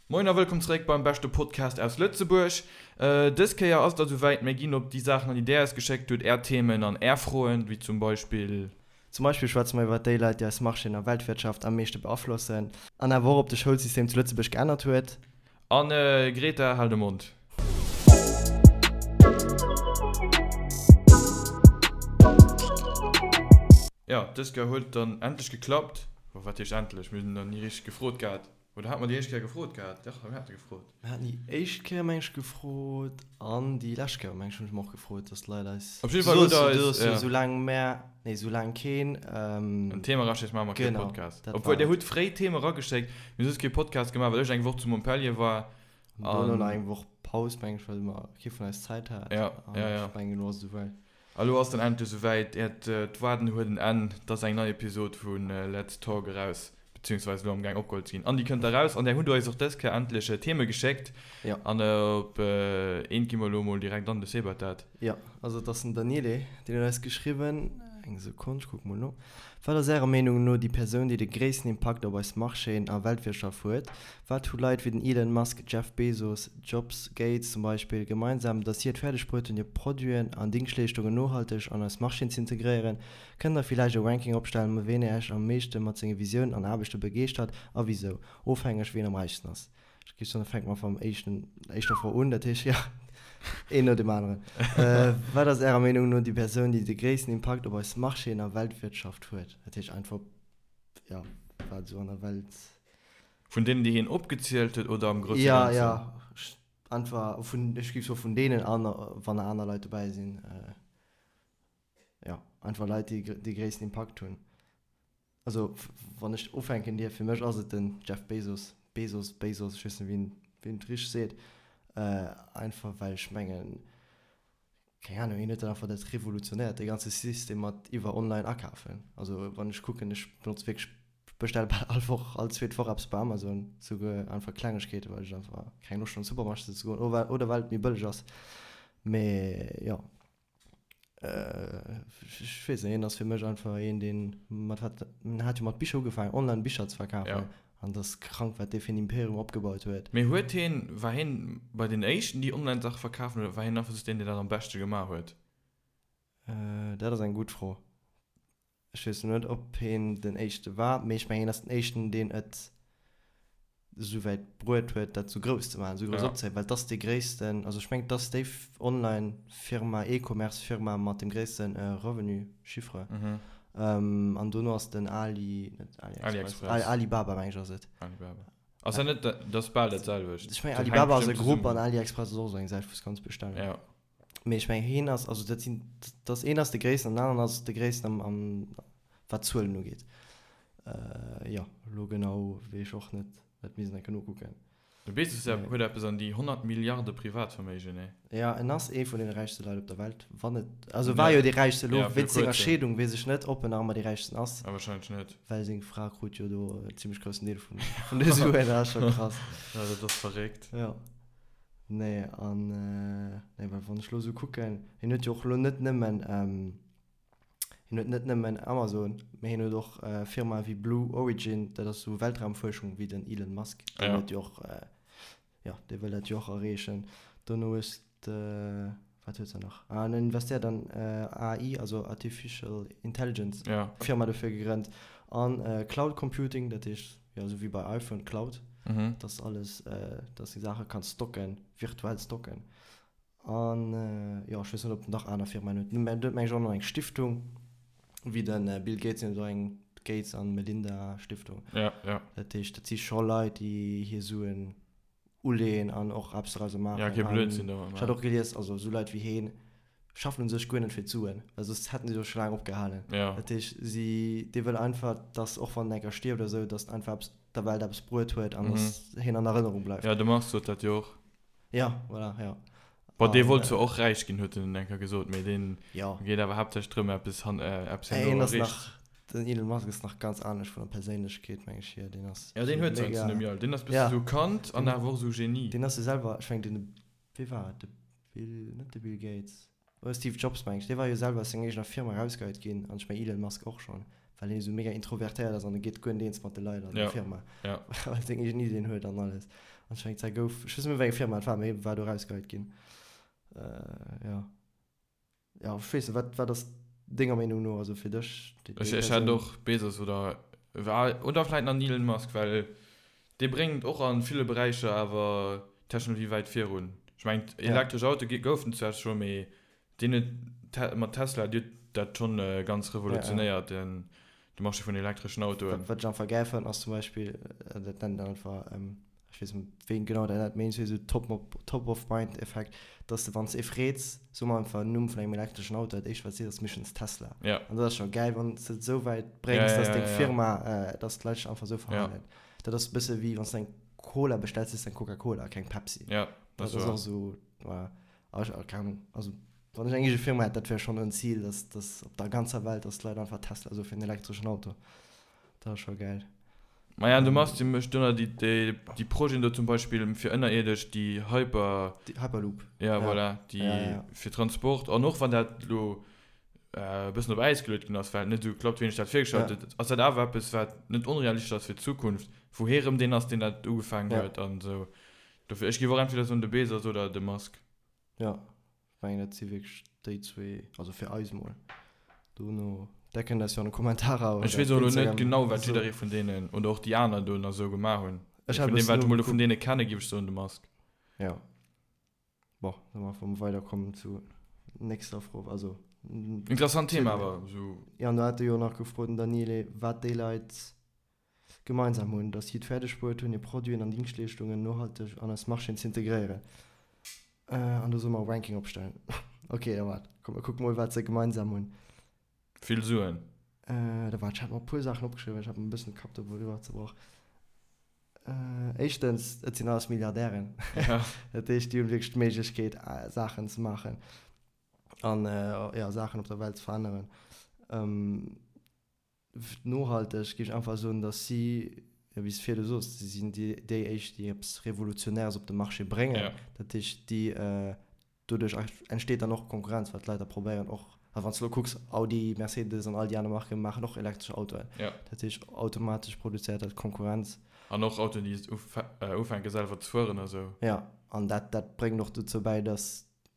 Moin a wëllkomm zeréck beim beschte Podcast aus Lëtzebuerg. Dës Kéier ass et da souwäit, mir ginn op déi Saachen an déi där eis geschéckt hutt, är Themen an är Froen, wéi zum Beispill. Zum Beispill schwätze mer iwwer déi Leit, déi eis Marchéen a Weltwirtschaft am meeschte beaflossen. An awer och, ob de Schoulsystem zu Lëtzebuerg geännert huet. An Greta, hal de Mond. Jo, dës Kéier huet et dann endlech geklappt. Bon, wat heescht endlech, mir hunn nach ni richteg gefrot gehat. Oder hat mer déi éischt Kéier gefrot gehat? Dach, mir hate gefrot. Mir haten déi éischt Kéier, meng ech, gefrot an déi lescht Kéier, meng ech, hunn ech mer och gefrot, dass d'Leit eis. Op jidde Fall hutt der eis, ja. Soulaang mär, nee, soulaang keen. En Thema eraschéckt, maache mer kee Podcast. Genau, dat war et. Obwuel, där hutt fréi Theme erageschéckt. Mir hu soss kee Podcast gemaach, well ech eng Woch zu Montpellier war. An dono nach eng Woch Paus, meng ech, well mer kee vun eis Zäit hat. Ja, ja, ja. An ech mengen, elo ass et esouwäit. A lo ass dann endlech esouwäit, Äert Waarden huet en Enn, 't ass eng nei Episod vu Let's Talk eraus, beziehungsweise elo am gaang opgeholl ze ginn. An déi kënnt eraus. An där hutt der eis och dës Kéier endlech Theme geschéckt. Jo. An op eent gi mer elo mol direkt an, de Seb hat dat. Jo, also et ass den Daniele, deen huet eis geschriwwen, eng Sekonn, ech kucke mol no, Wat ass Ärer Meenung no déi Persoun, déi de gréissten Impakt op eis Marchéen a Weltwirtschaft huet? Wat hu Leit wéi den Elon Musk, Jeff Bezos, Jobs, Gates zum Beispill gemeinsam, datt si et fäerdeg bruet hunn hir Produiten an Dingschtleeschtungen nohalteg an eis Marchéen z'integréieren? Kënnt der villäicht e Ranking opstellen, ween Äech am meeschte mat senge Visiounen an Aarbechte begeeschtert a wisou? Ofhängeg ween am räichsten ass. Ech géif soen, da fänke mer mam éischten, éischter Fro un, dat heescht, jo, een no deem aneren. Wat ass Ärer Meenung no déi Persoun, déi de gréissten Impakt op eis Marchéen a Weltwirtschaft huet? Dat heescht einfach, jo, wat esou an der Welt. Vun deenen, déi hien opgezielt huet, oder am grousse Ganzen? Jo, jo, einfach vun, ech géif soe vun deenen an wann nach aner Leit dobäi sinn, jo, einfach Leit, déi dee gréissten Impakt hunn. Also wann ech ufänken dierf, fir mech ass et den Jeff Bezos, Bezos, Bezos, ech weess net, wéi een, wéi een et richteg seet, einfach well ech mengen, keng Ahnung, hien huet dat einfach dat revolutionéiert, dee ganze System mat iwwer online akafen. Also wann ech kucken, ech benotze wierklech, bestelle bal all Woch, all zweet Woch eppes bei Amazon, souguer einfach Klengegkeeten, well ech einfach keng Loscht hunn an de Supermarché ze goen oder well et méi bëlleg ass. Mee jo. Ech weess net, hien ass fir mech einfach een, deen mat wat, en hat jo mat Bicher ugefaangen, online Bicher ze verkafen. Ja. An dat ass krank, wat dee fir en Imperium opgebaut huet. Mee huet hien, war hien bei den éischten, déi online Saache verkafen, oder war hien einfach just deen, deen dat am beschte gemaach huet? Dat ass eng gutt Fro. Ech weess net, ob hien den éischte war, mee ech mengen, hien ass den éischten, deen et esou wäit bruet huet, dat esou grouss ze maachen, esou grouss opzehiewen, well et ass dee gréissten, also ech mengen, et ass déi Online-Firma, E-Commerce-Firma mat dem gréisste Revenu, Chiffre. An dono ass den Ali, net AliExpress, Alibaba, meng ech ass et. Alibaba. Ass dat net, dat ass bal dat selwecht. Ech mengen, Alibaba ass e Grupp an AliExpress ass och esou eng Säit, wou s kanns bestellen. Ja. Mee ech mengen heen ass, also dat sinn, dat ass een ass de gréissten an den aneren ass de gréissten am, am wat d'Zuelen ugeet. Jo, elo genau weess ech och net, dat misst een enke nokucken. De Bezos huet eppes an déi 100 Milliarde Privatverméigen, nee? Jo, en ass ee vun deene räichste Leit op der Welt, wann net, also war jo dee räichste, elo wéinst senger Scheedung weess ech net, ob en nach ëmmer dee räichsten ass. Ah, wahrscheinlech net. Well seng Fra krut jo do en zimmlech groussen Deel vun, vun de Suen, dat ass scho krass. Jo, dat ass verréckt. Jo. Nee, an nee, well wann ech elo esou kucken, hien huet jo och elo net nëmmen, hien huet net nëmmen Amazon, mee hien huet och Firmae wéi Blue Origin, dat ass esou Weltraumfuerschung wéi den Elon Musk, deen huet jo och, jo, dee wëll dat jo och erreechen. Dono hues de, wat huet se nach? Ah, en investéiert an AI, also Artificial Intelligence, Firma dofir gegrënnt, an Cloud Computing, dat heescht, Jo, esou wéi bei iPhone, Cloud, dass alles, dass de Saache kanns stocken, virtuell stocken. An jo, ech weess net, ob en nach aner Firmaen huet. Mä en huet meng ech och nach eng Stiftung, wéi de Bill Gates, deen huet och eng Gates an Melinda Stiftung. Ja, ja. Dat heescht, dat si scho Leit, déi hir Suen uleeën an och eppes dorauser maachen. Ja, kee Blödsinn domat maachen. Ech hat och gelies, also esou Leit wéi heen schaffen u sech guer net fir d'Suen, well soss hätten si jo scho laang opgehalen. Ja. Dat heescht, si, dee wëll einfach, dass och wann en enker stierft oder esou, dass en einfach eppes der Welt eppes bruet huet an dass hien an Erënnerung bleift. Ja, de Mars sot dat jo och. Ja, voilà, ja. Bon, dee wollt zwar och räich ginn, huet en enker gesot, mee deen Ja. geet awer haaptsächlech drëm, eppes han, eppes Hien herno ass erreecht. nach, den Elon Musk ass nach ganz anescht vun der Perséinlechkeet, meng ech hier. Deen ass Ja, deen esou huet sou mega. eppes vun dem Jal. Deen ass bësse Ja. sou Kand an Deen, awer och sou Genie. deen ass jo selwer, ech mengen, den, wee war et, de Bill, net de Bill Gates, oder Steve Jobs, meng ech, dee war jo selwer aus senger eegener Firma erausgeheit ginn, an ech mengen Elon Musk och schonn, well hien esou mega introvertéiert ass an e geet guer net eens mat de Leit an der Ja, Firma, ja. well e seng eegen Ideen huet an alles. An ech mengen, d'Zäit gouf, ech weess net méi, wéi eng Firma et war, mee war do erausgeheit ginn. Jo. Jo, ech weess net, wat, wat ass denger Meenung no, also fir dech, déi, déi Ech, ech hätt och Bezos oder, oder vläit nach den Elon Musk, well dee bréngt och a ville Beräicher awer d'Technologie wäit virun. Ech mengen, elektresch Autoe goufen zwar scho, mee Deen huet mat Tesla, déi huet dat schonn ganz revolutionéiert, den de Marché vun elektreschen Autoen. Wat ech einfach gäil fannen ass zum Beispill, dat nennt een einfach, ech weess net wéi een genau dat nennt, mee iergendwéi esou Top of Mind Effekt, dass de wann s de ee freets, so mol einfach en Numm vun engem elektreschen Auto, dat éischt wat s sees ass meeschtens Tesla. An dat ass scho gäil wann s de et esou wäit bréngs, dass deng Firma, dass d'Leit sech einfach esou verhalen. Dat ass e bësse wéi wann s de eng Cola bestells, sees de eng Coca-Cola, keng Pepsi. Dat ass och esou, voilà. Ah, ech, keng Ahnung. Also, wann ech eng eege Firma hätt, dat wär schonn en Zil, dass, dass op der ganzer Welt, dass d'Leit einfach Tesla soe fir en elektreschen Auto. Dat ass scho gäil. Maja, an de Musk, dee mécht do nach déi, déi, déi Projeten do zum Beispill fir ënnerierdesch, déi Hyper. Déi Hyperloop. Ja, voilà, déi ja, ja. fir Transport. An och wann dat elo e bëssen op Äis geluet ginn ass, well et net esou geklappt huet, wéi een sech dat virgestallt huet, ass dat awer eppes, wat net onrealistesch ass fir d'Zukunft, wou hee rëm deen ass, deen dat ugefaangen huet an esou. Dofir, ech géif och entweder soen de Bezos oder de Musk. Jo, ech mengen dat si wierklech déi zwee, also fir eis mol. Dono, där kënnt eis jo an de Kommentarer oder Ech weess och elo net genau wat jidderee vun deenen, oder och déi aner do nach esou gemaach hunn. Ech hat e Vun deem wat ech mol do vun deene kenne géif ech soen de Musk. Jo. Bon, da maache mer weider, kommen zu nächster Fro, also. Interessant Thema awer esou. Jo, an do hat e jo nach gefrot, den Daniele, wat déi Leit Gemeinsam hunn, datt si et fäerdeg bruet hunn, hir Produiten an Dingschtleeschtungen nohalteg an eis Marchéen z'integréieren. An do solle mer e Ranking opstellen. Ok, da waart, komm mer kucke mol, wat se gemeinsam hunn. Vill Suen. Da waart, ech hat mer e puer Saachen opgeschriwwen, ech hat mer e bëssen de Kapp doriwwer zerbrach. Éischtens, et sinn alles Milliardären. Dat heescht, déi hunn wierklech d'Méiglechkeet, Saachen ze maachen an, jo, Saachen op der Welt ze veränneren. Nohalteg géif ech einfach soen, datt si, jo wéi s de virdu soos, si sinn déi éischt, déi eppes Revolutionäres op de Marché bréngen. Dat heescht, déi, doduerch entsteet dann och Konkurrenz, well d'Leit da probéieren och, a wann s de elo kucks, Audi, Mercedes an all déi aner Marke maachen och elektresch Autoen. Dat heescht, automatesch produzéiert dat Konkurrenz. An och Autoen, déi ufänke selwer ze fueren a sou. Jo, an dat, dat bréngt och dozou bäi, datt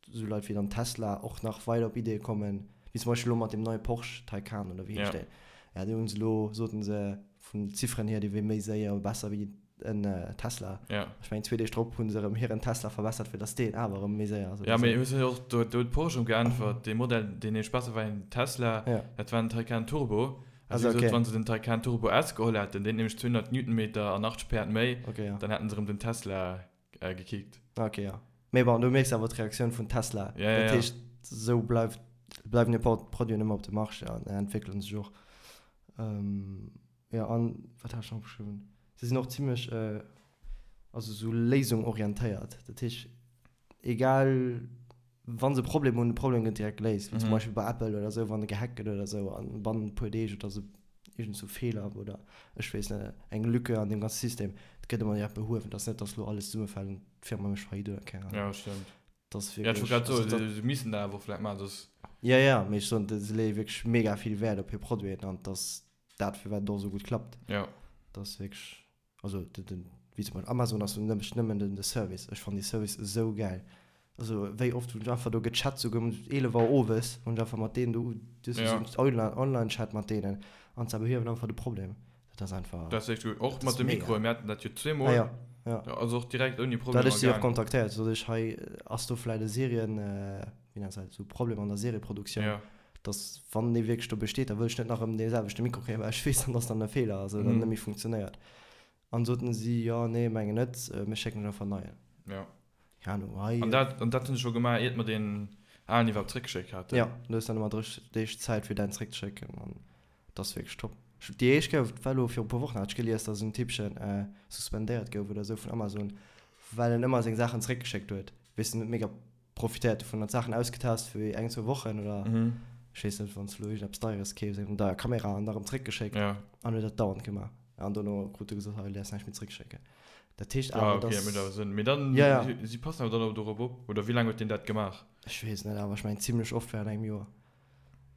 esou Leit wéi dann Tesla och nach weider op Ideeë kommen, wéi zum Beispill elo mat deem neie Porsche Taycan oder wéi heescht deen? Ja, dee hunn se elo, soten se, vun den Zifferen hier, dee wier méi séier, besser wéi en Tesla. Ja. Ech mengen, zwee Deeg drop hunn se erëm hiren Tesla verbessert, fir datt deen awer erëm méi séier ass oder Ja, mee esou. hues du och, do huet Porsche erëm geäntwert, dee Modell, deen nämlech besser war wéi den Tesla, Ja. dat war den Taycan Turbo. A si Also, hu gesot, okay. wann se den Taycan Turbo S geholl hätten, deen huet nämlech 200 Newtonmeter an 80 Päerd méi, Okay, ja. dann hätten se erëm den Tesla gekickt. Ok, jo. Mee bon, du mierks awer d'Reaktioun vun Tesla. Ja, ja, Dat ja. heescht, esou bleift, bleiwen hir Produiten ëmmer op dem Marché an entwéckele sech och. Jo, an wat hat ech nach opgeschriwwen? Se sinn och zimlech, also esou léisungorientéiert. Dat heescht, egal wa se e Problem hunn, de Problem gëtt direkt geléist. Wéi zum Beispill bei Apple oder esou, wann e gehackt gëtt oder esou an bannent e puer Deeg oder esou iergend sou Feeler oder ech weess net, eng Lücke an deem ganze System, dat gëtt ëmmer direkt behuewen. Et ass net, datt elo alles zesummefält an d'Firma mécht Faillite oder keng Ahnung. Ja, stëmmt. Dat ass Ja, ech wollt wierklech, grad also soen, dat. se missten dat awer och vläicht maachen, soss. Ja, ja, mee ech soen, se leeë wierklech mega vill Wäert op hir Produiten an et ass dat, firwat et och esou gutt klappt. Ja. Dat ass wierklech. Also den, den, wéi zum Beispill Amazon ass nëmmen, nëmmen den de Service. Ech fannen dee Service esou gäil. Also wéi oft hunn ech einfach do gechat, souguer um 11 Auer owes hunn ech einfach mat deenen do, du hues Ja. esou en Online, Online-Chat mat deenen an se behiewen einfach de Problem. Dat ass einfach, Dat ass echt gutt. Och dat mat ass de mega. Mikroen, mir haten dat jo Ah zweemol. ja, ja. Also och direkt ouni Da hat Problemer ech si och gaang. kontaktéiert, sot ech, hei ass do vläit e Serien, wéi nennt se dat, esou Problem an der Serieproduktioun, Ja. dass wann dee wierklech do besteet, da wëll ech net nach erëm dee selwechte Mikro kréien, well ech weess dann, dass dann e Feeler ass oder net méi funktionéiert. An soten si, jo, nee, mengen net, mir schécken lech einfach en neien. Ja. Keng Ahnung, hei. An dat, an dat hunn se scho gemaach, iert mer deen alen iwwerhaapt zréckgeschéckt haten. Jo, du hues dann ëmmer 30 Deeg Zäit, fir däin zréckzeschécken an dat ass wierklech top. Ech, déi éischt Kéier, war elo viru puer Wochen, hat ech gelies, dass en Typpchen suspendéiert gouf oder esou vun Amazon, well en ëmmer seng Saachen zréckgeschéckt huet. Weess de net, mega profitéiert dovun, hat Saachen ausgetest fir eng, zwou Wochen oder ech weess net, wann s de elo iergendeppes Deieres keefs, eng deier Kamera an da rëm zréckgeschéckt an huet dat dauernd gemaach. An dono krut e gesot, hei, du däerfs näischt méi zréckschécken. Dat heescht Ah, awer, okay, dat mécht awer dass. Sënn. Mee dann, Ja, ja. si passen awer dann och dorop op, oder wéi laang huet deen dat gemaach? Ech weess net, awer ech mengen zimlech oft während engem Joer.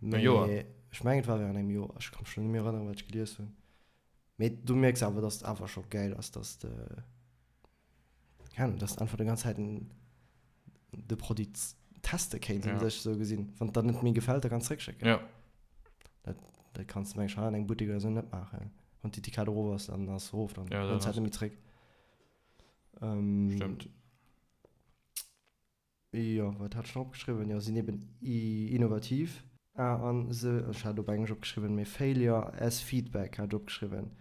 E Joer? Mee ech mengen, et war während engem Joer. Ech ka mech elo net méi erënneren, wat ech gelies hunn. Mee du mierks awer, dass et awer scho gäil ass, dass de. Keng Ahnung, dass de einfach déi ganz Zäit de Produit teste kéints un sech esou gesinn. Wann et der net méi gefält, da kanns de zréckschécken. Ja. Dat, dat kanns de meng ech hei an engem Buttek oder esou net maachen. Wann d'Etikett erof ass, dann ass se erof, dann Ja, dann hues de ass dat net méi zréck. Ähm, Stëmmt. Jo, wat hat ech nach opgeschriwwen? Jo, sinn eben innovativ. Ah, an se, ech hat op Englesch opgeschriwwen, mee Failure as feedback hat ech opgeschriwwen.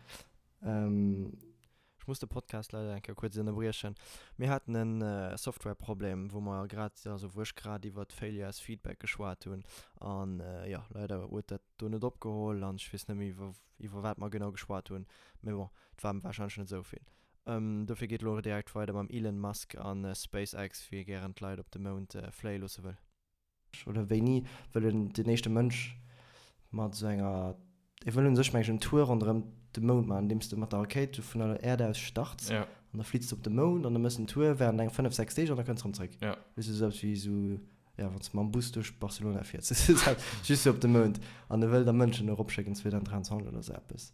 Ech muss de Podcast leider eng Kéier kuerz ënnerbriechen. Mir haten e Softwareproblem, wou mer grad, also wou ech grad iwwert Failure as feedback geschwat hunn. An jo, leider huet dat do net opgeholl an ech weess net méi, iwwer wat mer genau geschwat hunn. Mee bon, et war warscheinlech net esou vill. Dofir geet elo direkt weider mam Elon Musk a SpaceX, wéi e gären d'Leit op de Mound fléie loosse wëll. Oder wéini wëll en den éischte Mënsch mat esou enger, e wëll un sech meng ech en Tour ronderëm de Mound maachen, andeems de mat der Rakéit vun der Äerd aus starts an da fliits de op de Mound an da méchs en Tour während eng 5, 6 Deeg an da kënns de erëm zréck. Weess de, esou eppes wéi esou, jo, wann s de mam Bus duerch Barcelona fiers, just fir op de Mound. An e wëll da Mënschen eropschécken 2023 oder esou eppes.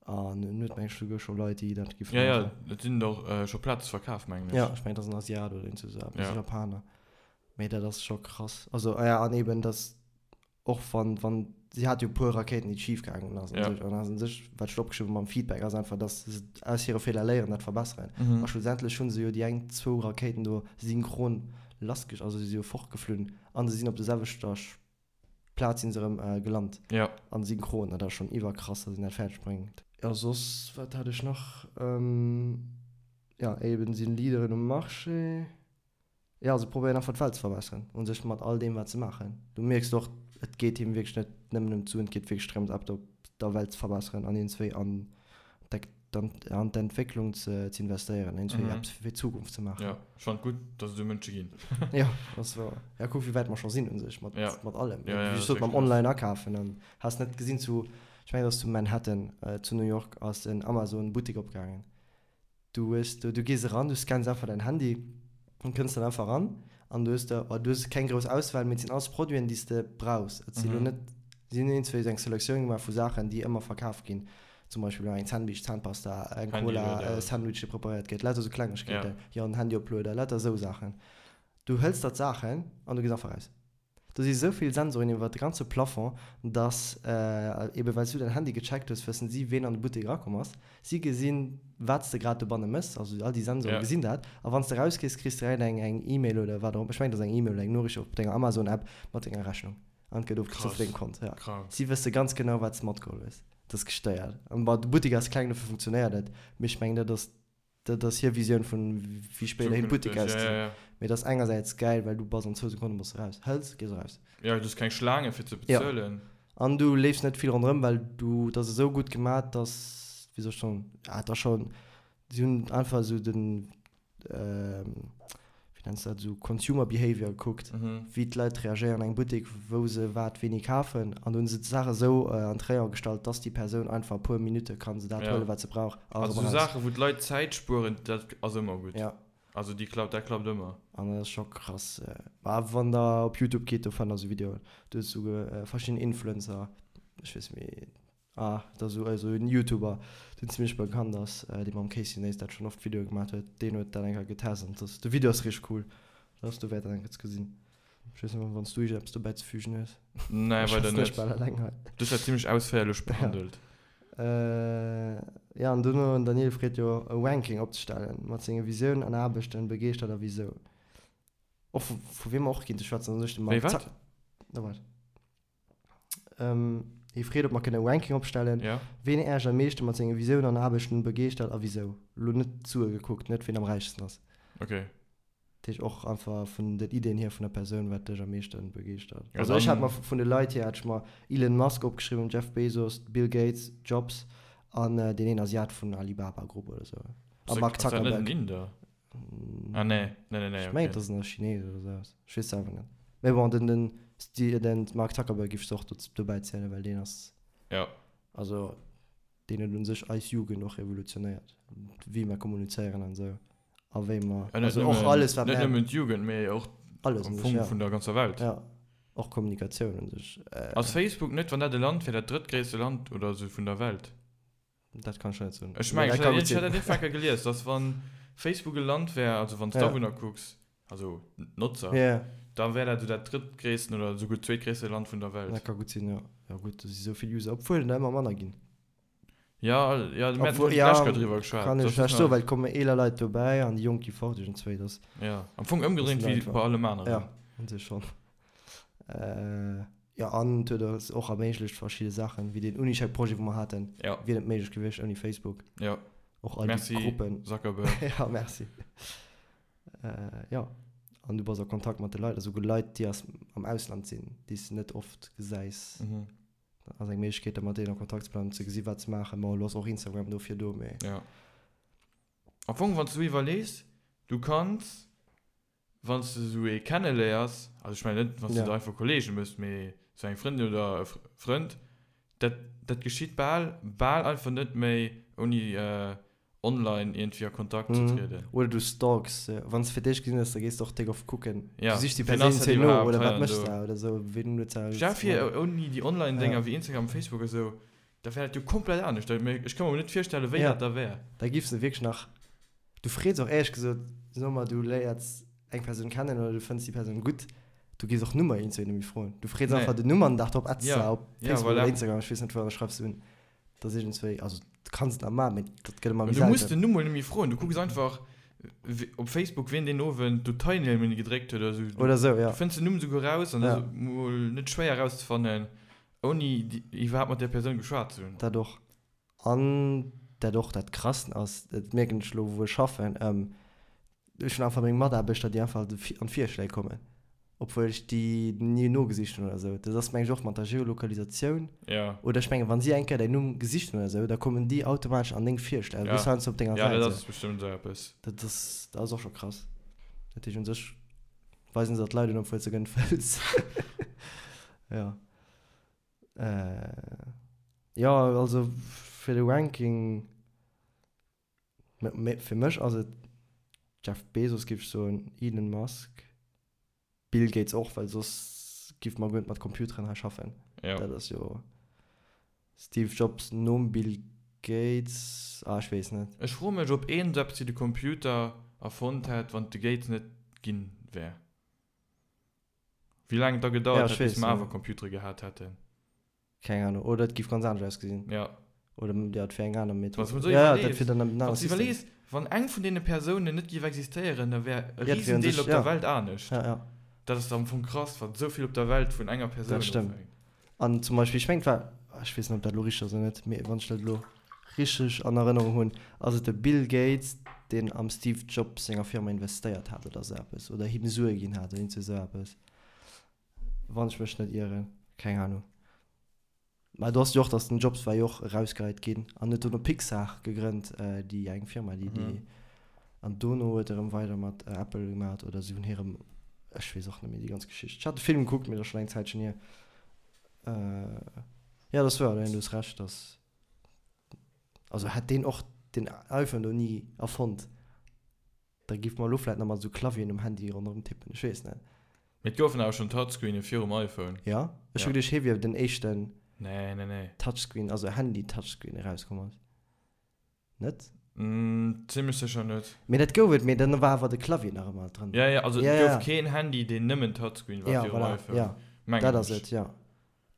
An en huet meng ech souguer scho Leit, déi dat giffen Ja, ja, maachen. et sinn och scho Plaze verkaf, mengen ech. Jo, ech mengen, et ass en Asiat oder iergend esou eppes, Ja. e Japaner. Mee dat ass scho krass. Also, ah ja, an eben, dass och wann, wann, si hat jo e puer Rakéiten, déi schif gaangen ass an Ja. sech, an ass un sech, wat ech opgeschriwwen hu mam Feedback, ass einfach, dass se aus hire Feeler léieren, dat verbesseren. Mhm. A schlussendlech hu se jo déi eng, zwou Rakéiten do synchron lassgesch, also si si jo fortgeflunn a se sinn op der selwechter Plaz sinn se erëm gelant. Ja. An synchron, dat ass schonn iwwerkrass, dass een dat fäerdeg bréngt. Jo, soss, wat hat ech nach? Jo, eben sinn Leaderen um Marché. Jo, se probéieren einfach d'Welt ze verbesseren u sech mat all deem wat se maachen. Du mierks och, et geet him wierklech net nëmmen ëm d'Suen, et geet wierklech drëms eppes op der Welt ze verbesseren an iergendswéi an an d'Entwécklung ze investéieren, iergendswéi eppes fir d'Zukunft ze maachen. Jo, ech fannen et gutt, dass et esou Mënsche ginn. Jo, ass wouer. Ja, kuck wéi wäit mer scho sinn u sech mat mat allem. Ja, ja, Wéi ech sot, mam Online akafen an has net gesinn zu, ech mengen et ass zu Manhattan zu New York ass en Amazon Buttek opgaangen. Du hues do, du gees eran, du scanns einfach däin Handy an kënns dann einfach eran an du hues da, oh, du hues keng grouss Auswahl, mee et sinn alles Produiten, déi s de brauchs. Et si lo net, si hunn iergendzwéi esou eng Selektioun gemaach vu Saachen, déi ëmmer verkaf ginn. Zum Beispill elo eng Zahnbiischt, Zahnpasta, eng Cola, e Sandwich, dee preparéiert gëtt, lauter esou Klengegkeeten, jo, en Handyoplueder, lauter esou Saachen. Du hëls der d'Saachen an du gees einfach raus. Do si sou vill Sensoren iwwert de ganze Plafond, dass, ebe well s du däin Handy gecheckt hues, wëssen si, ween an de Buttek erakomm ass. Si gesinn, wat s de grad dobanne méchs, also all déi Sensoren gesinn dat. A wann s de erausgees, kriss de direkt eng eng E-Mail oder wat och, ech mengen, et ass eng E-Mail oder eng Noriicht op denger Amazon-App mat denger Rechnung an et gëtt ofgezu vu dengem Kont. Jo. Si wësse ganz genau, wat s de matgeholl hues. Dat ass gestéiert. An bon, de Buttek ass kleng, dofir funktionéiert et, mee ech mengen, dat ass Dat ass hir Visioun vun wéi spéiderhin Zukünfteg, d'Buttek ja, ausgesinn. ja, ja. Mee et ass engersäits gäil, well du bass an zwou Sekonne bass de raus. Hëls, gees eraus. Ja, du hues keng Schlaange fir ze Ja. bezuelen. An du leefs net vill ronderëm, well du, et ass esou gutt gemat, dass, wéi soll ech soen, ah, et ass schonn, si hunn einfach esou den, wéi nenns de dat, esou Consumer Behavior gekuckt, wéi d'Leit reagéieren an engem Buttek, wou se wat wéini kafen. An do hunn se d'Saach esou an d'Rayon gestallt, dass déi Persoun einfach e puer Minutte kann se dat huelen, wat se brauch a erëm eraus. Also esou Saachen, wou d'Leit Zäit spueren, dat ass ëmmer gutt. Ja. Also déi klappt, dat klappt ëmmer. An dat ass scho krass. Mä wann der op Youtube geet, do fannt der esou Videoen. Do hues du verschidden Influencer, ech weess net méi, Ah, et ass esou en Youtuber, deen zimlech bekannt ass, dee mam Casey Neistat schonn oft Videoe gemaat huet, deen huet dat eng Kéier getest an dass de Video ass richteg cool. Dat ass dowäert dat eng Kéier ze gesinn. Ech weess net, wann s du iergendeppes dobäi ze fügen hues. Nee, Ech weider schwätzen net. ech bal eleng hei. Du hues dat zimlech ausféierlech behandelt. Ja, an dono, den Daniel freet jo e Ranking opzestellen mat senge Visiounen an Aarbechten, begeeschtert a wisou. Och vu vu wiem mer och kinnte schwätzen, ass u sech de Wéi Mark wat? Zuck. Na waart. Hie freet, ob mer kënne e Ranking opstellen, Ja. ween Äech am meeschte mat senge Visiounen an Aarbechten begeeschtert a wisou. Elo net d'Sue gekuckt, net ween am räichsten ass. Okay. Dat heescht och einfach vun den Ideen hier vun der Persoun, wat dech am meeschte begeeschtert. Ja, Also ech hat dann. mer vun de Leit hier hat ech mer Elon Musk opgeschriwwen, Jeff Bezos, Bill Gates, Jobs an deen een Asiat vun Alibaba Group oder sou. A Mark Ass dat net en Zuckerberg. Inder? Ah nee, nee, nee, nee, Ech mengen okay. et ass en Chines oder sou eppes. Ech weess selwer net. Mee bon, den, den, Sti-, den Mark Zuckerberg giff ech och do, dobäi zielen, well deen ass, Ja. also deen huet un sech eis Jugend och revolutionéiert, wéi mer kommunizéieren an esou a wéi mer, Ja, net also och nëmmen, alles wat net mer, nëmmen d'Jugend, mee och alles am un sech, Fong ja. vun der ganzer Welt. Ja, och Kommunikatioun un sech. Ass Facebook net, wann dat e Land wär, dat drëttgréisste Land oder esou vun der Welt? Dat kann ech net soen. Ech mengen, ech hat dat iergendwann gelies, dass wann. Facebook e Land wär, also wann s d'Awunner kucks, also d'Notzer, da wär dat esou dat drëttgréissten oder esouguer zweetgréisste Land vun der Welt. Dat ka gutt sinn, jo. Jo gutt, do si sou vill User, obwuel der ëmmer manner ginn. Jo, jo, mir haten d'lescht Kéier driwwer geschwat. Kann ech schlecht soen, well et komme eeler Leit dobäi an déi Jonk gi fort iergendzwéi. Dat Jo, am Fong ëmgedréint wéi bei allem aneren. Jo, un sech schonn. Jo, an et huet eis och erméiglecht verschidde Saachen, wéi deen Unicheck-Projet, wou mer haten, wier net méiglech gewiescht ouni Facebook. Jo. Och all déi Gruppen. Merci, Zuckerberg. Jo, merci. Jo, an du bass a Kontakt mat de Leit, esouguer Leit, déi aus, am Ausland sinn, déi s de net oft gesäis. Dat ass eng Méiglechkeet, da mat deenen a Kontakt ze bleiwen, ze gesi wat se maachen. Bon, elo ass och Instagram dofir do, mee. Jo. Am Fong, wann s du iwwerlees, du kanns, wann s de esou ee kenneléiers, also ech mengen net, wann s de der einfach Kollege méchs, mee esou eng Frëndin oder e Frënd, dat, dat geschitt bal, bal einfach net méi ouni online iergendwéi a Kontakt ze trieden. Oder du stalks se. Wann s de fir d'éischt gesinn hues, da gees de och déck oft kucken. Ja, Du sichs déi wien ass Persoun dat zwéi no iwwerhaapt oder hei wat an méchs do. de oder esou, ween huet se Stell vir, ouni déi Online-Dénger wéi Instagram, Facebook a sou, da wär dat jo komplett anescht. Ech ka mer net virstellen, wéi Ja. dat da wär. Da giffs de wierklech nach, du frees och éierlech gesot, soe mer du léiers eng Persoun kennen oder du fënns déi Persoun gutt, du gees och Nummer iergendzwéi net méi froen. Du frees Nee. einfach den Numm an den Dag drop adds Ja. se op Ja, Facebook voilà. oder Instagram, ech weess net wou, an da schreifs de un. Dat ass iergendzwéi, also du kanns et nach maachen, mee dat gëtt ëmmer méi Du muss selten. den Numm mol net méi froen, du kucks einfach op Facebook wien deen Owend do Teilnehme gedréckt huet oder sou. Oder sou, ja. Du fënns den Numm souguer raus an dat Ja. ass mol net schwéier rauszefannen, ouni iwwerhaapt mat där Persoun geschwat ze hunn. Dat och. An dat och dat Krassen ass, dat mierken ech elo wou ech schaffen, Ech hunn einfach meng Mataarbechter, déi einfach an d'Virschléi kommen, obwuel ech déi ni nogesicht hunn oder esou. Dat ass meng ech och mat der Geolokalisatioun. Ja. Oder ech mengen, wa si eng Kéier däin Numm gesicht hunn oder esou, da kommen déi automatesch an deng Virschléi. Also Ja. du bist heiansdo op denger Ja, Säit. dat ass bestëmmt esou eppes. Dat ass, dat ass och scho krass. Dat heescht, un sech weisen se der d'Leit un, obwuel s de guer net wëlls. Jo. Jo, also fir de Ranking. Mee fir mech ass et Jeff Bezos giff ech soen, Elon Musk, Bill Gates och, well soss giff mer guer net mat Computeren hei schaffen. Ja. Dat ass jo Steve Jobs nom Bill Gates, ah ech weess net. Ech froe mech ob een esou eppes wéi de Computer erfonnt hätt wann et de Gates net ginn wär. Wéi laang et da gedauert Ja, ech hätt bis weess, mer ja. awer Computere gehat hätten. Keng Ahnung. Oder et giff ganz anescht ausgesinn. Ja. Oder ja, et wär eng aner Method. Wann s de mol Ja, ja, dat iwwerlees, wier dann en wann anere s de System. iwwerlees, wann eng vun deene Persounen net géif existéieren, da wär e Ja, dat wär un Risendeel sech, op der ja. Welt anescht. Ja, ja. Dat ass am Fong krass, wat esou vill op der Welt vun enger Persoun Dat stëmmt. ofhänkt. An zum Beispill, ech mengen, et war, ech weess net, ob dat elo richteg ass oder net, mee wann ech dat elo richteg an Erënnerung hunn, ass et de Bill Gates, deen am Steve Jobs senger Firma investéiert hat oder esou eppes, oder him Sue ginn hat oder iergend esou eppes. Wann ech mech net ieren, keng Ahnung. Mä do ass jo och, dass den Jobs war jo och erausgeheit ginn an huet dono Pixar gegrënnt, déi eng Firma, déi déi an dono huet e rëm weider mat Apple gemat oder si hunn hirem, ech weess och net méi déi ganz Geschicht. Ech hat de Film gekuckt, mee dat ass schonn eng Zäitchen hier. Jo, dat ass wouer, du hues Recht, dass, also hätt deen och den iPhone do ni erfonnt, Da giff mer elo vläit nach mat esou Clavieren um Handy ronderëm tippen, ech weess net. Mee et goufen awer schonn Touchscreene virum iPhone. Jo? Ech hu Ja. geduecht hie wier den éischten Nee, nee, nee. Touchscreen, also Handy-Touchscreen erauskomm ass. Net? Zimmlech sécher net. Mee dat gouf et, mee dann war awer de Clavier nach ëmmer dran. Ja, ja, also Ja, et ja. gouf keen Handy, deen nëmmen Touchscreen war Ja, virum voilà, iPhone. ja. Mengen Dat ass ech. et, ja.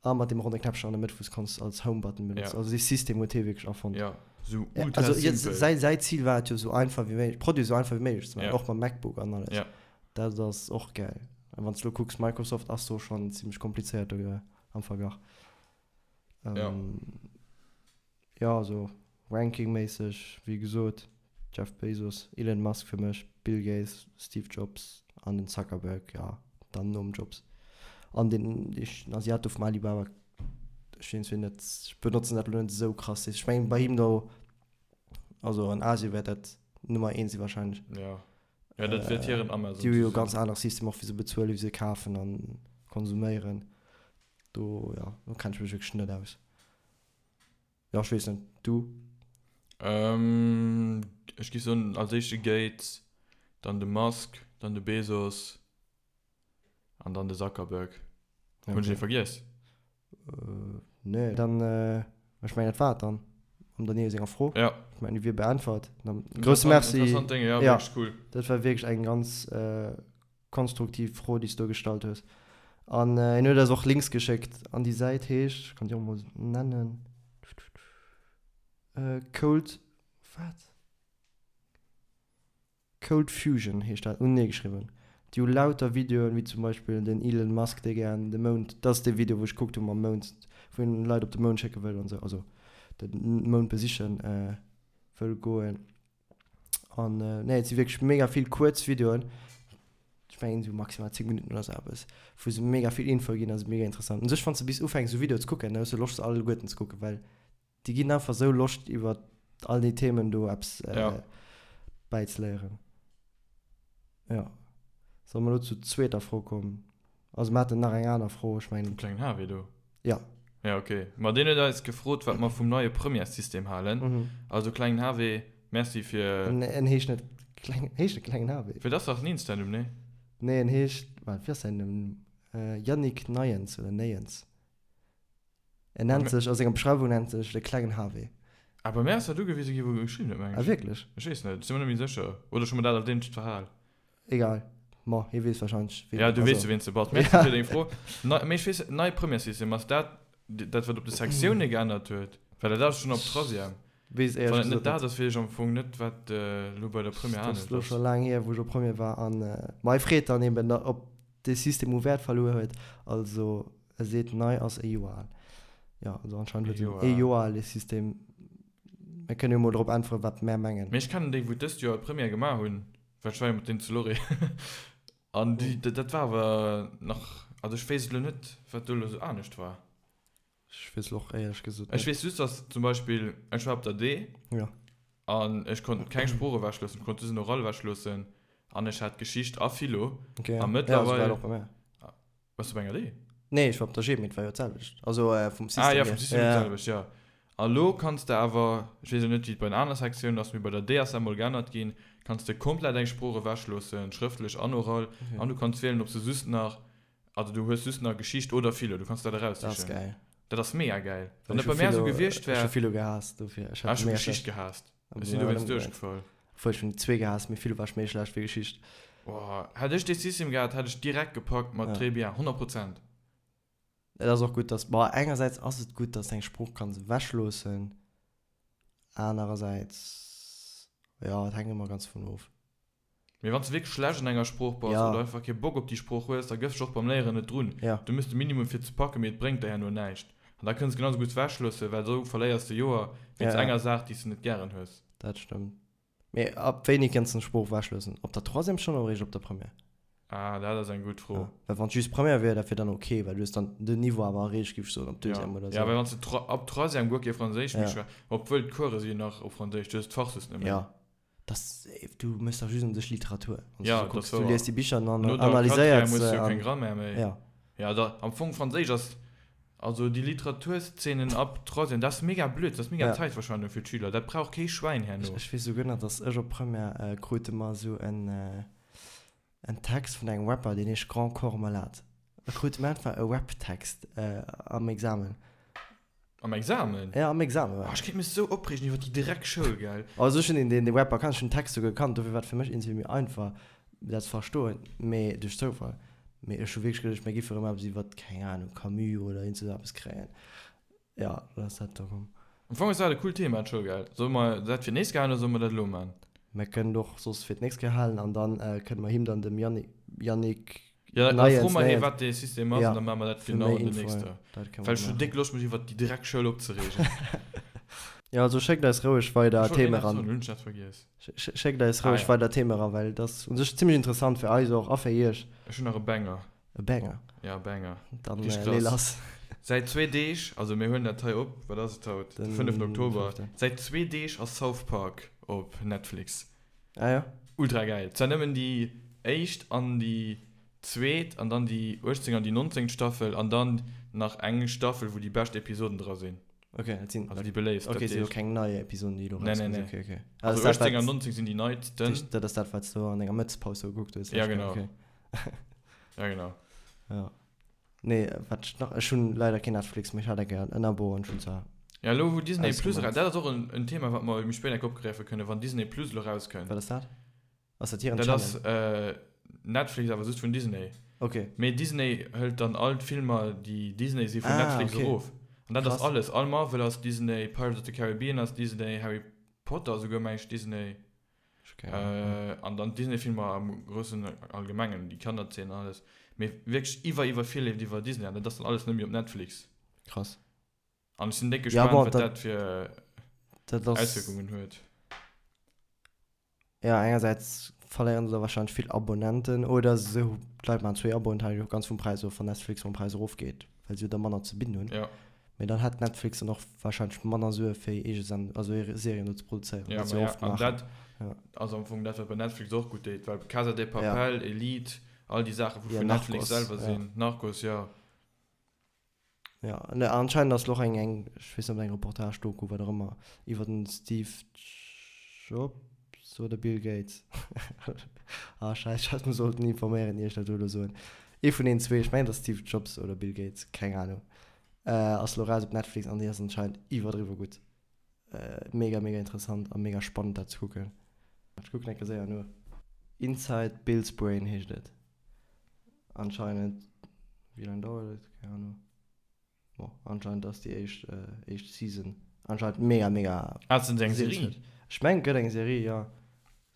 A mat deem ronne Knäppchen an der Mëtt, wou s kanns als Home-Button benotzen. Ja. Also dee System huet hie wierklech erfonnt. Ja, sou Ja, ultra also je, simpel. säi, säi Zil war et jo, sou einfach wéi méiglech, Produit sou einfach wéi méiglech ze maachen, Ja. och mam MacBook an alles. Ja. Dat ass och gäil. A wann s de lo kucks, Microsoft ass do schonn zimmlech komplizéiert do am Verglach. Ja. Ähm, Jo, also Ranking-méisseg, wéi gesot, Jeff Bezos, Elon Musk fir mech, Bill Gates, Steve Jobs an den Zuckerberg, jo, dann nom Jobs. An deen Asiat do vum Alibaba, ech weess net, ech benotzen dat elo net esou krass. Ech mengen bei him do, also an Asien wäert dat Nummer eent si wahrscheinlech. Jo, jo, dat wäert hiren Amazon Déi hu ze jo sinn. ganz anere System och wéi se bezuelen, wéi se kafen a konsuméieren. Do, jo, do kenne ech mech wierklech net aus. Jo, ech weess net. Du? Ähm, ech géif soen, als éischt de Gates, dann de Musk, dann de Bezos an dann de Zuckerberg. Hunn ech ee vergiess? Nee, dann, ech mengen dat war et dann. Mam Daniele senger Fro. Ja. Ech mengen, déi wier beäntwert. Dann grousse Merci. Interessant Dénge, ja, Ja. wierklech cool. Dat war wierklech eng ganz konstruktiv Fro, déi s du do gestallt hues. An hien huet eis och Links geschéckt. An déi Säit heescht, ech kann déi och emol nennen, Cold, wat? Cold Fusion heescht dat, unenee geschriwwen. Déi hu lauter Videoen, wéi zum Beispill den Elon Musk, dee gären de Mound, dat ass dee Video, wou ech gekuckt hu mam Mound, wou en Leit op de Mound schécke wëll an esou, also de Mound besichen wëll goen. An nee, et si wierklech mega vill kuerz Videoen, ech mengen esou maximal 10 Minutten oder esou eppes, wou se mega vill Info ginn, ass mega interessant. U sech, wann s de bis ufänks esou Videoe ze kucken, da hues de Loscht se alleguerten ze kucken, well Déi ginn einfach sou Loscht iwwer all déi Themen do eppes bäizeléieren. Jo. Solle mer elo zur zweeter Fro kommen? Also mer haten nach eng aner Fro, ech mengen. Vum klengen Harvey do? Jo. Ja, ok. Ma deen huet eis gefrot, wat mer vum neie Premièressystem halen. Also klengen Harvey, Merci fir. En heescht net kleng, heescht e klengen Harvey? Fir dat ass dach en Insta-Numm, nee? Nee, en heescht, waart, wéi ass säin Numm? Yannick Neiens oder Néiens. En nennt sech, a senger Beschreiwung nennt sech de klengen HW. Ah, bei mär ass dat ugewise gi wou e geschriwwen huet, mengen ech. Ah, wierklech? Ech weess net, ech si mer net méi sécher. Oder ech hu mer dat als eenzegt verhal. Egal, ma hie weess warscheinlech, ween. Ja, du weess jo, ween s de bass. Merci fir deng Fro. Nei, mee ech weess, nei Premièressystem, ass dat dat, wat op de Sektioune geännert huet? Well dat ass schonn op Troisième. Weess éierlech gesot net. Wann et net dat ass, weess ech am Fong net, wat elo bei der Première anescht ass. Dat ass elo scho laang hier, wou ech op Première war. An ma hie freet dann eben, ob dee System u Wäert verluer huet. Also e seet, nei ass e Joer al. Jo, also anscheinend huet en ee Joer al, dee System. Mir kënnen jo mol drop äntweren, wat mär mengen. Mee ech kennen déi, wou dëst Joer d'Première gemaach hunn, well ech war jo mat deenen zu Lorry. An déi, dat war awer nach, also ech weess elo net, wat do elo esou anescht war. Ech weess och éierlech gesot net. Ech weess just, dass zum Beispill, ech war op der D Ja. an ech konnt keng Sprooch ewechloossen, ech konnt just en Oral ewechloossen an ech hat Geschicht a Philo. Okay, ja. A Ja, esou war et mëttlerweil. och bei mär. Waars du op enger D? Nee, ech war op der G, mee et war jo d'selwecht. Also vum System Ah ja, vum System hier d'selwecht, ja. A lo kanns de awer, ech weess elo net, wéi et bei den aner Sektiounen ass, mee bei der D ass dat mol geännert ginn, kanns de komplett eng Sprooch ewechloossen, schrëftlech an oral, an du kanns wielen, ob s de just nach Also du hues just nach Geschicht oder Philo, du kanns dat eraussichen. Dat ass gäil. Dat ass mega gäil. Wann dat bei mär esou gewiescht wär. Ech hu Philo gehaasst dofir. Ech hat mega Geschicht gehaasst. Ech sinn dowéinst duerchgefall. Obwuel ech hunn déi zwee gehaasst, mee Philo war ech méi schlecht wéi Geschicht. Boah, hätt ech dee System gehat, hätt ech direkt gepackt mat très bien, 100 Prozent. Et ass och gutt, dass, bon, engersäits ass et gutt, dass de eng Sprooch kanns ewechloossen, anerersäits, jo, et hänkt ëmmer ganz dovun of. Mee wann s de wierklech schlecht an enger Sprooch bass Ja. oder einfach kee Bock op déi Sprooch hues, da gëffs dech och beim Léieren net drun. Ja. Du méchs de Minimum fir et ze packen, mee et bréngt der herno näischt. An da kënns de genau sou gutt wechloossen, well esou verléiers de Joer wéinst Ja, ja. enger Saach, déi s de net gären hues. Dat stëmmt. Mee ab wéini kënns de eng Sprooch wechloossen? Op der Troisième schonn oder eréischt op der Première? Ah, dat ass eng gutt Fro. Ja. Well wann et just Première wier, dat wier dann ok, well du hues dann den Niveau awer erreecht, géif ech soen, op Ja, Deuxième oder ja, sou. well wann s de Tro ab Troisième guer kee Franséisch méi Ja. schwä, obwuel d'Course si jo nach op Franséisch, du hues d'Fach just net méi. Ja. Das, du mëss dach just un sech Literatur. Wann Ja, du so kucks, das du liest déi Bicher an No der analyséiert Quatrième hues se. du jo keng An, Grammaire méi. ja. Ja, da, am Fong Franséisch ass, also déi Literaturszenen ab Troisième, dat ass mega blöd, dat ass mega Ja. Zäitverschwendung fir d'Schüler, dat brauch kee Schwäin Ech, herno. ech weess souguer nach, dass ech op Première äh, krute mer esou en, äh, en Text vun engem Rapper, deen heescht Grand Corps Malade. Da krute mer einfach e Rap-Text äh, am Examen. Am Examen? Ja, am Examen war Oh, ech kéint mech sou opreegen iwwer déi Dreckschoul, gell? Also ech hunn deen, deen Rapper kannt, ech hunn den Text souguer gekannt, dofir war et fir mech iergendwéi méi einfach dat ze verstoen, mee duerch Zoufall. Mee ech hu wierklech geduecht, mir géife rëm eppes iwwer, keng Ahnung, Camus oder iergend sou eppes kréien. Ja, dann ass dat do komm. Am Fong ass dat e coolt Thema, d'Schoul, gell? Solle mer dat fir d'nächst Kéier halen oder solle mer dat elo man? Mir kënnen et och soss fir d'nächst Kéier halen an dann kënne mer him dann, dem Yannick, Yannick Ja, da Neiens, froe mer hie Neiens. wat dee System ass Ja, an da maache mer dat fir genau méi an den Infoen, nächster. dat kënne Well mer ech hunn maachen. déck Loscht mech iwwert déi Dreckschoul opzereegen. Ja, also schéckt eis roueg weider Ech wollt een Theme eppes ran. soen, hunn ech dat vergiess? Schéckt eis Ah roueg ja. weider Theme ran, well et ass u sech zimlech interessant fir eis och a fir iech. Ech hunn nach e Banger. E Banger? Ja, e Banger. Dann Richtig lee krass. lass. Säit zwee Deeg, also mir huelen dat hei op, wat ass et haut? De Den fënneften Oktober. fënneften. Säit zwee Deeg ass South Park op Netflix. Ah ja. Ultra gäil. Zwar nëmmen déi éischt an déi zweet an dann déi 18 an déi 19 Staffel an dann nach eng Staffel wou déi bescht Episoden dra sinn. Ok, dat sinn. Also déi beléiftst. Ok, sinn elo keng nei Episoden déi elo Nee, nee, rauskomm sinn. nee. Ok, ok. Also 18 an 19 sinn déi neitsten. Dat ass dat wat s du an denger Mëttespaus sou gekuckt hues. Ja genau. Ok. Ja genau. Ja. Nee, wat ech nach, ech hunn leider keen Netflix, mee ech hat eng Kéier en Abo an ech hunn zwar. Ja, elo wou Disney Plus eraus, dat ass och en Thema, wat mer méi spéit enk opgräife kënnen, wann Disney Plus elo erauskënnt. Wat ass dat? Ass dat hiren Channel? Dat ass Netflix, awer just vun Disney. Ok. Mee Disney hëlt dann all d'Filmer, déi Disney si vun Netflix erof. An dat ass alles. All Marvel ass Disney, Pirates of the Caribbean ass Disney, Harry Potter esouguer, meng ech, Disney. An dann d'Disney-Filmer am groussen Allgemengen, déi Kannerzeen an alles. Mee wierklech iwwer, iwwer vill leeft iwwer Disney an dat ass dann alles net méi op Netflix. Krass. An ech sinn déck gespaant, wat dat fir Auswierkungen huet. Jo, engersäits verléieren se da warscheinlech vill Abonnenten oder se, d'Leit maachen zwéi Aboen, hänkt jo ganz vum Präis of, wann Netflix mam Präis erofgeet, well se jo da manner ze bidden hunn. Jo. Mee dann hätt Netflix dann och warscheinlech manner Sue fir hir eege Send-, also hir Serien do ze produzéieren, Jo, wat se ma jo ja, oft an maachen. dat ass am Fong dat, wat bei Netflix och gutt deet, well Casa de Papel, Elite, all déi Saachen, wou Jo, vun Netflix Narcos, selwer jo. sinn, Narcos, jo. Jo, ne, anscheinend ass lo och eng, eng, ech weess net, ob eng Reportage, Doku, wat och ëmmer, iwwer den Steve Jobs oder Bill Gates. Ah, scheiss, ech hätt mech sollten informéieren, ier ech dat do elo soen. Ee vun deenen zwee, ech mengen et ass Steve Jobs oder Bill Gates, keng Ahnung, ass lo raus op Netflix an déi ass anscheinend iwwerdriwwe gutt. Mega, mega interessant a mega spannend dat ze kucken. Ech kucken eng Kéier séier no. Inside Bill's Brain heescht et. Anscheinend, wéi laang dauert et? Keng Ahnung. Bon, anscheinend ass déi éischt, éischt Season anscheinend mega, mega. Ah, et ass eng Serie? Ech mengen, et gëtt eng Serie, jo.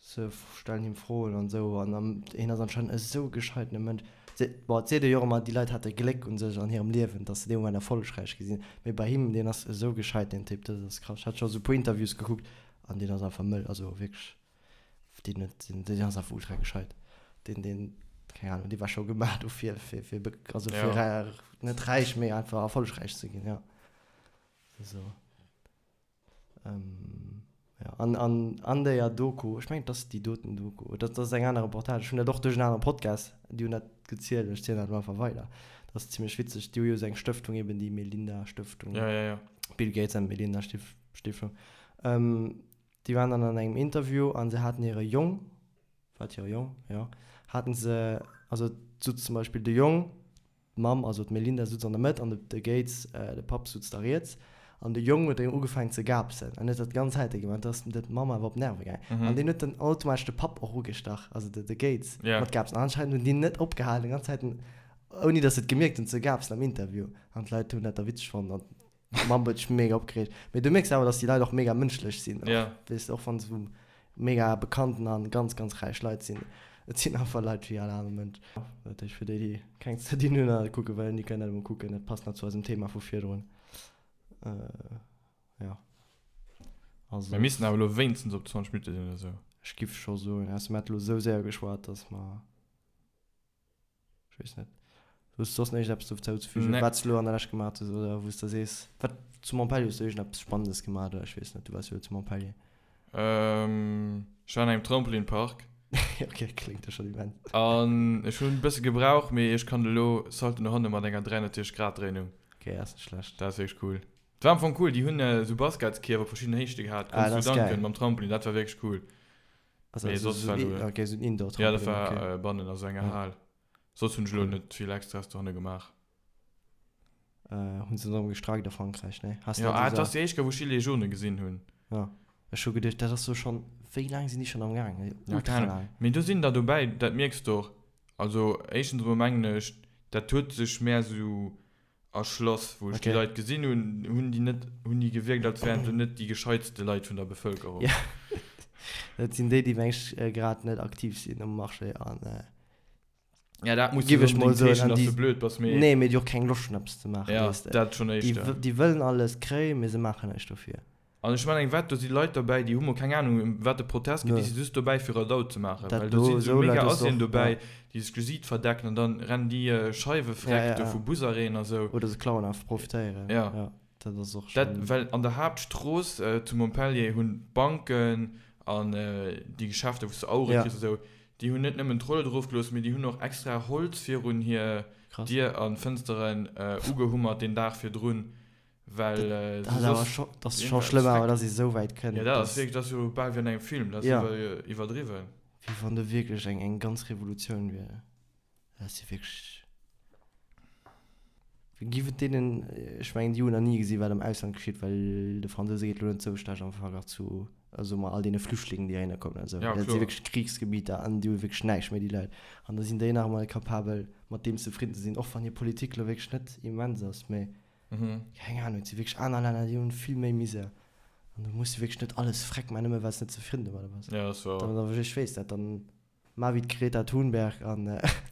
Se stellen him Froen an esou an hien ass anscheinend esou e gescheitene Mënsch. Bon, et seet ee jo och ëmmer, déi Leit hate Gléck u sech an hirem Liewen, datt se dee Moment erfollegräich gi sinn. Mee bei him, deen ass esou gescheit, deen Typ, dat ass krass. Ech hat scho esou e puer Interviews gekuckt an deen ass einfach mëll, also wierklech. Deen huet, deen ass einfach ultra gescheit. Deen, deen, keng Ahnung, dee war scho gemaach dofir, fir, fir, also fir ja. net räich, mee einfach erfollegräich ze ginn, ja. So. Ähm, ja. An, an, an der Doku, ech mengen, dat ass déi doten Doku, dat ass eng aner Reportage, ech hunn dat och duerch en anere Podcast, déi hunn dat gezielt, ech zielen dat elo einfach weider. Dat ass zimmlech witzeg, déi hu jo esou eng Stëftung eben, déi Melinda Stëftung. Ja, ja, ja. Bill Gates and Melinda Stiftung. Ähm, Déi waren dann an engem Interview an se haten hire Jong, war et hire Jong? Jo, haten se, also et sutz zum Beispill de Jong, d'Mamm, also d'Melinda sutz an der Mëtt an de de Gates, de Papp sutz da riets. An de Jong huet ugefaangen ze gaapsen an huet dat d'ganz Zäite gemaach. Do ass der Mamm awer op d'Nerve gaangen. An deen huet dann automatesch de Papp och ugestach, also de de Gates, mat Gaapsen. An anscheinend hunn déi net opgehalen, déi ganz Zäiten, ouni datt se et gemierkt hunn, ze gaapsen am Interview. An d'Leit hunn dat da witzeg fonnt an D'Mamm huet sech mega opgereegt. Mee du mierks awer, dass déi Leit och mega mënschlech sinn. Och, Ja. weess de, och wann se sou mega bekannten an ganz, ganz räich Leit sinn. Et sinn einfach Leit wéi all aner Mënsch. Dat heescht, fir déi, déi keng ze dinn hunn an et kucke wëllen, déi kënnen dat emol kucken. Dat passt nach zu eisem Thema vu virdrun. Jo. Also. Mir missten awer elo wéinstens op 20 Minutte sinn oder sou. Ech giff scho soen, ausser mir hätte elo sou séier geschwat, dass mer. Ech weess net. Hues du soss nach iergendeppes dozou ze fügen, Nee. wat s du elo an der Lescht gemaach hues oder wou s de sees, wat zu Montpellier hues du iergendeppes Spannendes gemaach oder ech weess net, du waars jo elo zu Montpellier. Ähm, ech war an engem Trampolinpark. Ok, kléngt jo schonn immens. An ech hunn e bësse gebraucht, mee ech kann elo Salto no hanne mat enger 360 Grad Dréinung. Ok, ass net schlecht. Dat ass wierklech cool. Et war am Fong cool, déi hunn esou Basketskierf op verschidden Héichte gehat, Ah, konns dat du ass geil. dunken mam Trampolin, dat war wierklech cool. Also, Mee also soss so war ein, elo. okay, so ein Ja, dat Indoor-Trampolin, war okay. äh, bannen a sou enger Ja. Hal. Soss hunn ech elo Cool. net vill Extras dohanne gemaach. Äh, hunn se erëm gestreikt a Frankräich, ne? Has Ja, net ah, et esou. ass déi éischt Kéier, wou ech Gilets jaunes gesinn hunn. Ja. Ech hu geduecht, dat ass so schonn, wéi laang sinn déi schonn am Gaang? Ja, Ultra keng Ahnung. laang. Mee do sinn der dobäi, dat mierks de och. Also, éischtens emol mengen ech, dat huet sech mär sou erschloss. Wou ech déi Okay. Leit gesinn hunn, hunn déi net, hunn déi gewierkt, als wären se net déi gescheitste Leit vun der Bevëlkerung. Ja, dat sinn déi, déi meng ech grad net aktiv sinn um Marché an Ja, dat muss giff net ech mol onbedéngt soen, heeschen, an dass déi, du blöd bass, mee. nee, mee déi och keng Loscht hunn eppes ze maachen, Ja, weess de. dat schonn Déi, éischter. déi wëllen alles kréien, mee se maachen näischt dofir. An ech mengen, wat, do si Leit derbäi, déi hu mol keng Ahnung, ëm wat de Protest geet, Nö. déi si just dobäi, fir Radau ze maachen. Dat Well do do, si sou esou mega Leit hues de Assien och, dobäi, ja. déi sech d'Gesiit verdecken an dann rennen déi Scheiwe Ja, freck ja, do ja. vu Busarrêten a sou. Oder se klauen einfach, profitéieren. Ja. Ja, dat ass och Dat, schonn. well an der Haaptstrooss zu Montpellier hunn d'Banken an déi Geschäfter, wou s de Auere Ja. kriss a sou, déi hunn net nëmmen d'Rollo erofgelooss, mee déi hunn och extra Holz virun hir Krass. Dier an Fënsteren ugehummert deen Dag virdrun, Well Dat ass awer scho, dat ass scho schlëmm awer, dass ee sou wäit kënnt. Ja, dat ass wierklech, dat ass jo bal wéi an engem Film, dat ass Ja. iwwerdriwwen. Wéi wann do wierklech eng, eng ganz Revolutioun wier. Dat ass jo wierklech. Giff et deenen, ech mengen déi hunn nach ni gesi wat am Ausland geschitt, well de Fransouse geet elo net sou schlecht am Verglach zu, soe mer, all deene Flüchtlingen déi heihinner kommen an esou. Ja, Dat si kloer. wierklech Krichsgebieter an déi hu wierklech näischt méi déi Leit. An da sinn déi nach emol capabel mat deem zefridden ze sinn, och wann hir Politik elo wierklech net immens ass, mee keng Ahnung, et si wierklech aner Länner déi hunn vill méi Misär an do muss de wierklech net alles freck man, nëmme well s de net zefridden domadder bass. Ja, dat ass wouer. Dann, ech weess dat, dann Mar wéi d'Greta Thunberg an.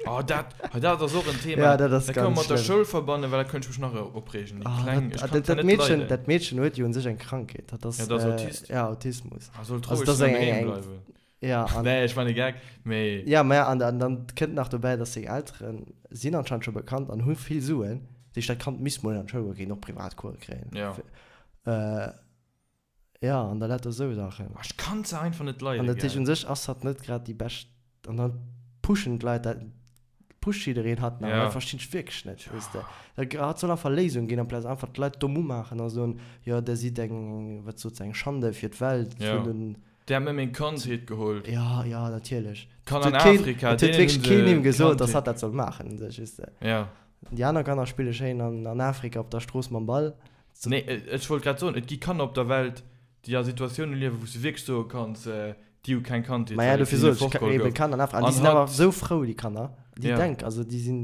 Oh, dat, hei, dat ass och en Thema. Ja, dat ass Dat kënne mer ganz mat der schlëmm. Schoul verbannen, well da kënnt ech mech nach opreegen. Déi Oh, Kleng, dat, ech kann dat, se dat net Meedchen, leiden. dat Meedchen huet jo un sech eng Krankheet. Dat ass, Ja, dat ass Autist. Ja, Autismus. Ah, sollt Also, roueg dat ass eng, doheem eng, eng, bleiwen. ja, an. Nee, ech man e Gag, mee. Ja, mä an, an dann kënnt nach dobäi, dass seng Eltere sinn anscheinend scho bekannt an hu vill Suen. Dat heescht, dat Kand misst mol an d'Schoul goen, kéint och Privatcourse kréien. Ja. Äh, Ja, an da lauter esou Saachen. Ah, ech kann se einfach net leiden, An dat heescht, gell. un sech ass hatt net grad déi bescht. An dann pushen d'Leit dat, pusht jiddereen hatt nach. An Ja. dat verstinn ech wierklech net, weess de. Da hatt soll einfach Léisungen ginn, amplaz einfach d'Leit domm umaachen a soen, jo, der sidd eng, wat sot se, eng Schande fir d'Welt, Ja. vun den. Der hat mir meng Kandheet geholl. Ja, ja, natierlech. Kanner an Et huet keen, Afrika, et huet deenen wierklech hunn keen se him gesot, dass Kandheet. hatt dat soll maachen, un sech, weess de. Ja. Déi aner Kanner spille schéin an, an Afrika op der Strooss mam Ball. Nee, ech wollt grad soen, et gi Kanner op der Welt, déi a Situatioune liewen, wou s de wierklech soe kanns, déi hu keng Kandheet, Maja, well et dofir hinne sot ech, fortgeholl eben gouf. Kanner an Afrika, an déi An sinn awer hatt, esou frou, déi Kanner, déi ja. denk, also déi sinn,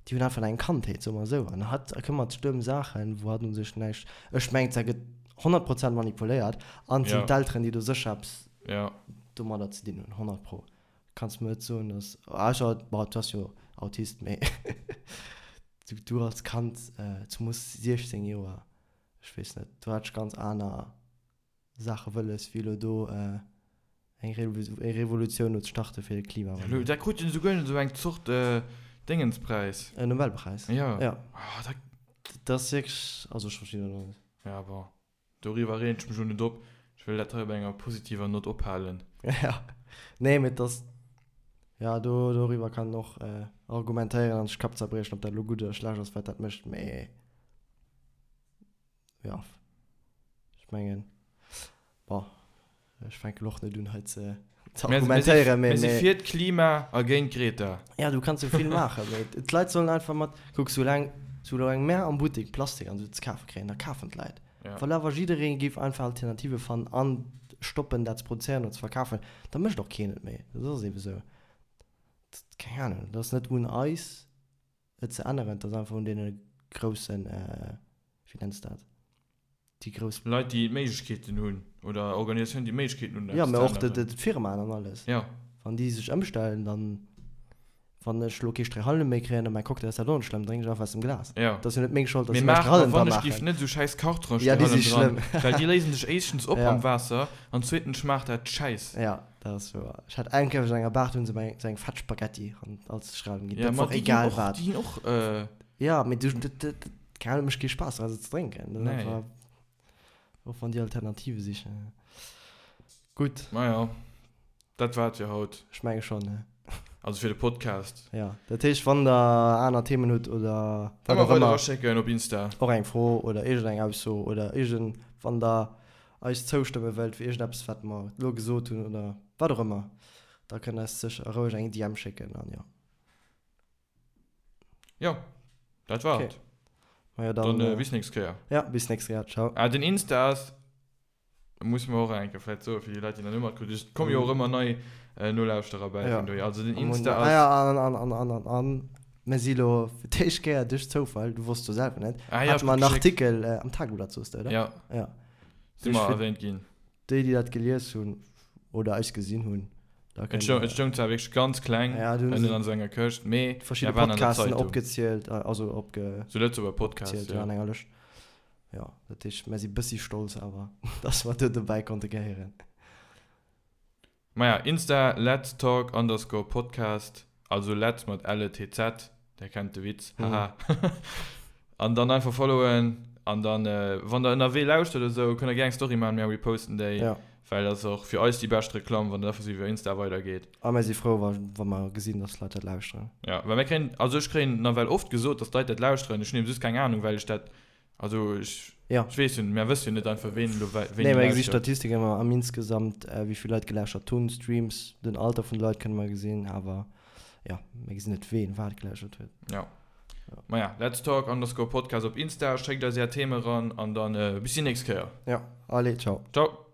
déi hunn einfach eng Kandheet, soe mer esou, an hatt këmmert sech ëm Saachen, wou hatt u sech näischt, ech mengen, dat gëtt 100 Prozent manipuléiert, an et sinn Ja. d'Elteren, déi do sécher eppes Ja. domadder ze dinn hunn, 100 pro. Kanns mer net soen, dass, ausser, bon, du ass jo Autist, mee du, du als Kand, zemoos 16 Joer, ech weess net, do hat ech ganz aner Saache wëlles, wéi elo do eng Revolutioun elo ze starte fir de Klimawandel. Dat krut en esouguer esou eng Zort Déngenspräis. En Nobelpräis. Jo. Ja. Ah, dat. Dat ass wierklech, also ech verstinn dat och net. Ja, bon. Doriwwer reegen ech mech elo net op. Ech wëll dat hei op enger positiver Nott ophalen. Ja. Nee, mee et ass, ja, do, doriwwer kann een och argumentéieren an sech d'Kapp zerbriechen, ob dat elo gutt oder schlecht ass, wat dat mécht, mee. Ja, ech mengen, bon, ech fänken elo och net un hei ze ze argumentéieren, mee. Mir si fir d'Klima a géint d'Greta. Ja, du kanns jo vill maachen, mee d'Leit sollen einfach mat, kuck, soulaang, soulaang mär am Buttek Plastik an esou ze kafe kréien, da kafen d'Leit. Ja. Well awer jidderee géif einfach Alternative fannen an stoppen dat ze produzéieren oder ze verkafen, da mécht och keen et méi. Dat ass eebe sou. Keng Ahnung, dat ass net un eis. Et ze änneren, et ass einfach un deene groussen, wéi nenns de dat, déi grouss. Leit, déi d'Méiglechkeeten hunn, oder Organisatiounen, déi d'Méiglechkeeten hunn, Jo, eppes mä ze och änneren. d'Firmaen an alles. Jo. Wann déi sech ëmstellen, dann, wann ech elo kee Stréihalem méi kréien a mäi Cocktail ass dat och net schlëmm, drénken ech einfach aus dem Glas. Jo. Et ass jo net meng Schold, datt Mee se mäi maach, Stréihalem wann dra ech giff maachen. net esou schäiss Kartonen Ja, déi si Stréihalem dran, schlëmm. well déi léisen sech éischtens op Ja. am Waasser an zweetens schmaacht dat schäiss. Ja. Dat ass wouer. Ech hat eng Kéier op enger Bar, do hunn se mer esou eng fett Spaghetti an als Stréihalem ginn. Ja, Dat ma war och déi ginn egal och, wat. déi ginn och, äh. Ja, mee du, dat, dat, dat, keng Ahnung, mécht kee Spaass dra se ze drénken. Dat ass Nee. einfach, och wann déi Alternative sichen. Gutt. Maja, dat war et fir haut. Ech menge schonn, ne? Also fir de Podcast. Ja, dat heescht, wann der aner Themen hutt oder wat Ëmmer och weider ëmmer. eraschécken op Insta. Och eng Fro oder iergendeng Ausso oder iergend, wann der eis zoustëmme wëllt fir iergendeppes wat mer elo gesot hunn oder wat och ëmmer, da kënnt eis sécher roueg eng DM schécken an jo. Jo, dat war Okay. et. Majo dann. Dann bis nächst Kéier. Ja, bis nächst Kéier. Ciao. Ah, den Insta ass, musse mer och eng Kéier vläicht soen, fir déi Leit, déi nach net matkritt hunn. Et komme jo och ëmmer nei Nolauschterer bäi Ja. vun dohier. Also den Am Insta Ah ass. ja, an, an, an, an, an, an mir si lo fir d'éischt Kéier duerch Zoufall, du wosst jo selwer net, Ah ja, hate mer en geschéckt. Artikel am Tageblatt, soos de, oder? Ja. Ja. Si mer erwähnt ginn. Déi, déi dat gelies hunn oder eis gesinn hunn, da Et kënnt stoung, der. et stoung zwar wierklech ganz kleng Ja, du hunn ënnen se an esou enger Këscht, mee verschidde mir waren an der Podcasten Zeitung. opgezielt, also opge. Sou Lëtzebuerger Podcasts, opgezielt, ja. ja, an enger Lëscht. Jo, dat heescht, mir si bëssi stolz awer, dass mer do dobäi konnte gehéieren. Maja, Insta, Let's Talk underscore Podcast, also Let's mat L-E-T-Z, der kennt de Witz, haha. An dann einfach followen an dann, wann der ënnerwee lauschtert oder sou, kënnt der gär eng Story maachen, mir reposten déi, Ja. well dat ass och fir eis déi bescht Reklamm, wann dat einfach sou iwwer Insta weidergeet. A mir si frou, wa, wa mer gesinn, dass d'Leit dat lauschteren. Ja, well mir kréien, also ech kréien nawell oft gesot, dass d'Leit dat lauschteren, ech hunn eben just keng Anung, well ech dat Also ech, Ja. ech weess jo net, mär wësse jo net einfach ween elo wei, wéini Nee, mer gesi lauschtert. Statistiken ëmmer am insgesamt, wéi vill Leit gelauschert hunn, Streams, den Alter vun de Leit kënne mer gesinn, awer jo, mir gesinn net ween wat gelauschert huet. Ja. Maja, let's talk underscore podcast op Insta, schéckt eis är Theme eran an dann bis déi nächst Kéier. Ja, allez, ciao. Ciao.